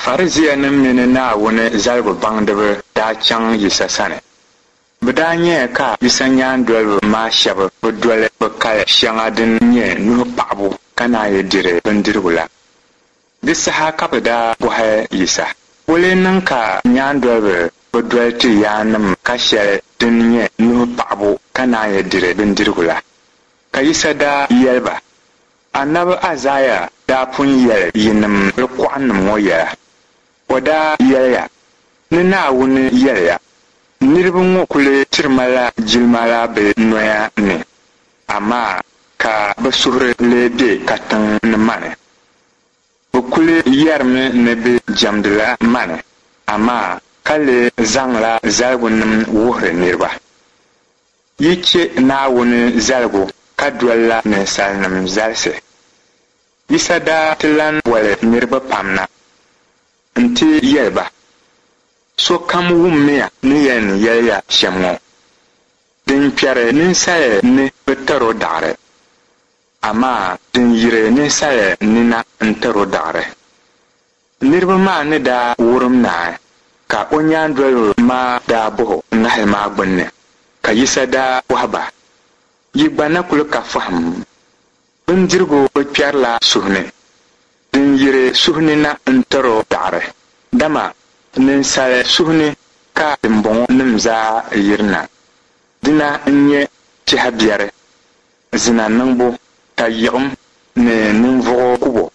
Farisiinim mini Naawuni zaligu baŋdiba daa chaŋ Yisa sani. Bɛ daa nyaya ka Yisa nyaandoliba maa shɛba bi doli bɛ kali shɛŋa din nyɛ nuhi paɣibu ka naan yi diri bindirigu la. Di saha ka bɛ daa bɔhi Yisa, Wula n-niŋ ka nyaandoliba bi doli ti yaannim ka shɛli din nyɛ nuhi paɣibu ka naan yi diri bindirigu la? Ka Yisa daa yɛli ba, Anabi Aizaia daa pun yɛli yinim kɔɣinim ŋɔ yɛla. O daa yɛliya, Ni Naawuni yɛliya, Niriba ŋɔ kuli tiri ma la jilima la bɛ noya ni, amaa ka bɛ suhuri lee be katiŋ ni mani. Bɛ kuli yɛrimi ni bɛ jɛmdila mani, amaa ka lee zaŋla zaligunim wuhiri niriba. Yi chɛ Naawuni zaligu ka dolila ninsalinim zalisi. Yisa daa ti lan boli niriba pam na nti yɛli ba, Sokam wummiya ni yɛn yɛli ya shɛm ŋɔ, Din kpɛri ninsal ni bi tar o daɣiri, amaa din yiri ninsal ni na n-tar o daɣiri. Niriba maa ni daa wurim naai, ka o nyaandoliba maa daa bɔh o ŋahili maa gbinni, ka Yisa daa bɔhi ba, Yi gba na kul ka fahim? Bindirigu bi kpɛrila suhu ni, din yiri suhu ni na n-tir o daɣiri, dama ninsal suhu ni ka dimbɔŋɔnim zaa yirina. Dina n-nyɛ tɛha biɛri, zina niŋbu, tayiɣim ni ninvuɣ kubo.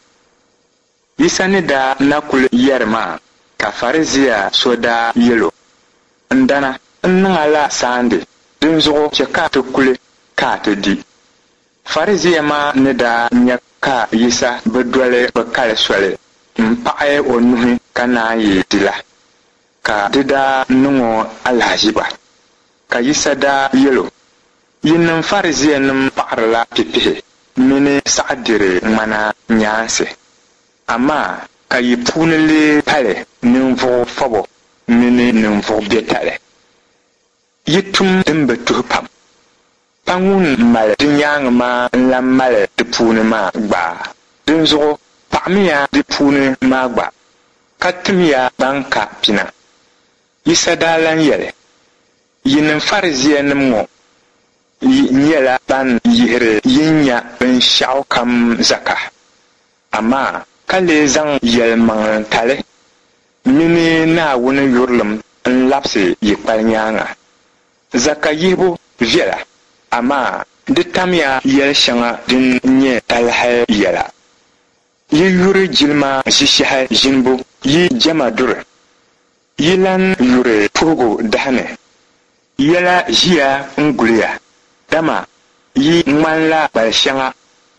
Yisa ni daa na kul yɛri maa ka Farizia so daa yɛl o, N dana, n niŋ a la saandi, dinzuɣu chɛ ka ti kuli ka a ti di. Farizia maa ni daa nya ka Yisa bi doli bɛ kali soli m-paɣi o nuhi ka naan yi di la, ka di daa niŋ o alahiziba. Ka Yisa daa yɛl o, Yinim Farizianim paɣirila pipihi mini saɣidiri ŋmana nyaansi, amaa ka yi puuni lee pali ninvuɣ fɔbo mini ninvuɣ biɛtali. Yi tum din bi tuhi pam. Pa ŋun mali di nyaaŋa maa n-lan mali di puuni maa gba? Dinzuɣu paɣimiya di puuni maa gba, ka timiya ban ka pina. Yisa daa lan yɛli, Yinim Farizianim ŋɔ, yi nyɛla ban yihiri yin nya binshɛɣukam zaka, amaa ka lee zaŋ yɛlimaŋlitali mini Naawuni yurilim n-labisi yi kpali nyaaŋa. Zaka yihibu viɛla, amaa di tamya yɛl shɛŋa din nyɛ talahi yɛla. Yi yuri jilima ʒishɛhi ʒinibu yi jɛma duri. Yi lan yuri puhigu dahi ni. Yɛla ʒiya n-guli ya, dama yi ŋmanila kpal shɛŋa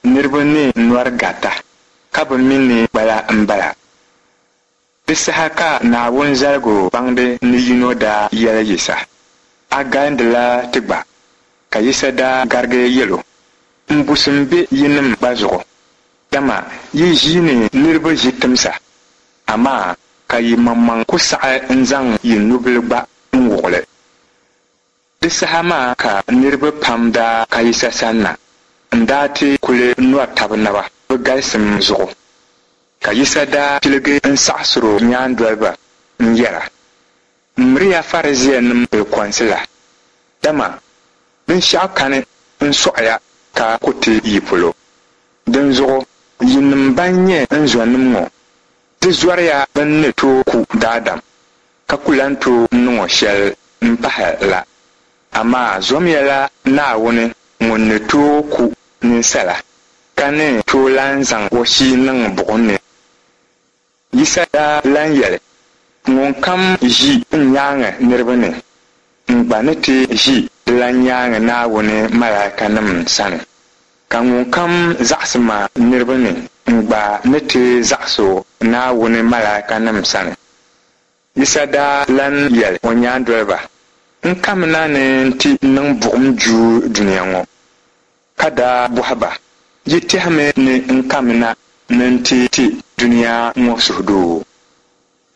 niriba ni nɔri garita, ka bi mi ni kpala m-bala. Di saha ka Naawuni zaligu baŋdi ni yino daa yɛli Yisa, A galindila ti gba. Ka Yisa daa garigi yɛl o, Mbusim be yinim gba zuɣu, dama yi ʒiini niriba ʒi timsa, amaa ka yi maŋmaŋ ku saɣi n-zaŋ yi nubil gba n-wuɣ li. Di saha maa ka niriba pam daa ka Yisa sanna n-daa ti kuli nɔri tab naba bɛ galisim zuɣu. Ka Yisa daa piligi n-saɣisir o nyaandoliba n-yɛra, Miriya Farisiinim bilikɔnsi la, dama binshɛɣu kani n-sɔɣiya ka ku ti yi polo. Dinzuɣu yinim ban nyɛ n zɔnim ŋɔ, di zɔriya bɛn ni tooi ku daadam ka ku lan tooi niŋ o shɛli m-pahi la, amaa zomiya la Naawuni ŋun ni tooi ku ninsala, ka ni tooi lan zaŋ o shii niŋ buɣim ni. Yisa daa lan yɛli, Ŋunkam ʒi n nyaaŋa niriba ni, n gba ni ti ʒi dilan nyaaŋa Naawuni malaikanim sani. Ka ŋunkam zaɣisi ma niriba ni, n gba ni ti zaɣis o Naawuni malaikanim sani. Yisa daa lan yɛli o nyaandoliba, N kamina ni n ti niŋ buɣim juui dunia ŋɔ. Ka daa bɔhi ba, Yi tɛhimi ni n kamina ni n ti ti dunia ŋɔ suhudoo?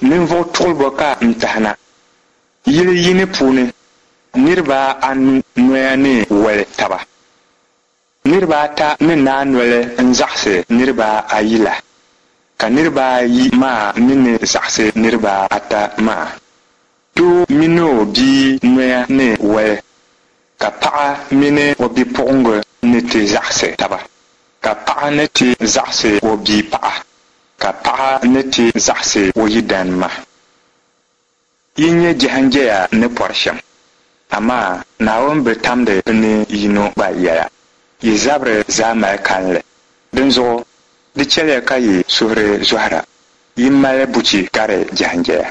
Ninvuɣ tuɣilibo ka n tahi na. Yili yini puuni, niriba anu noya ni woli taba. Niriba ata ni naai noli n-zaɣisi niriba ayi la. Ka niriba ayi maa mi ni zaɣisi niriba ata maa. Doo mini o bia noya ni wali, ka paɣa mini o bipuɣiŋga ni ti zaɣisi taba, ka paɣa ni ti zaɣisi o bia paɣa, ka paɣa ni ti zaɣisi o yidan ma. Yi nya jɛhinjɛya ni pɔri shɛm, amaa Naawuni bi tamdi bɛ ni yino gba yɛla. Yi zabiri zaa mali kalinli. Dinzuɣu di chɛliya ka yi suhuri zɔhira, yi mali buchi gari jɛhinjɛya.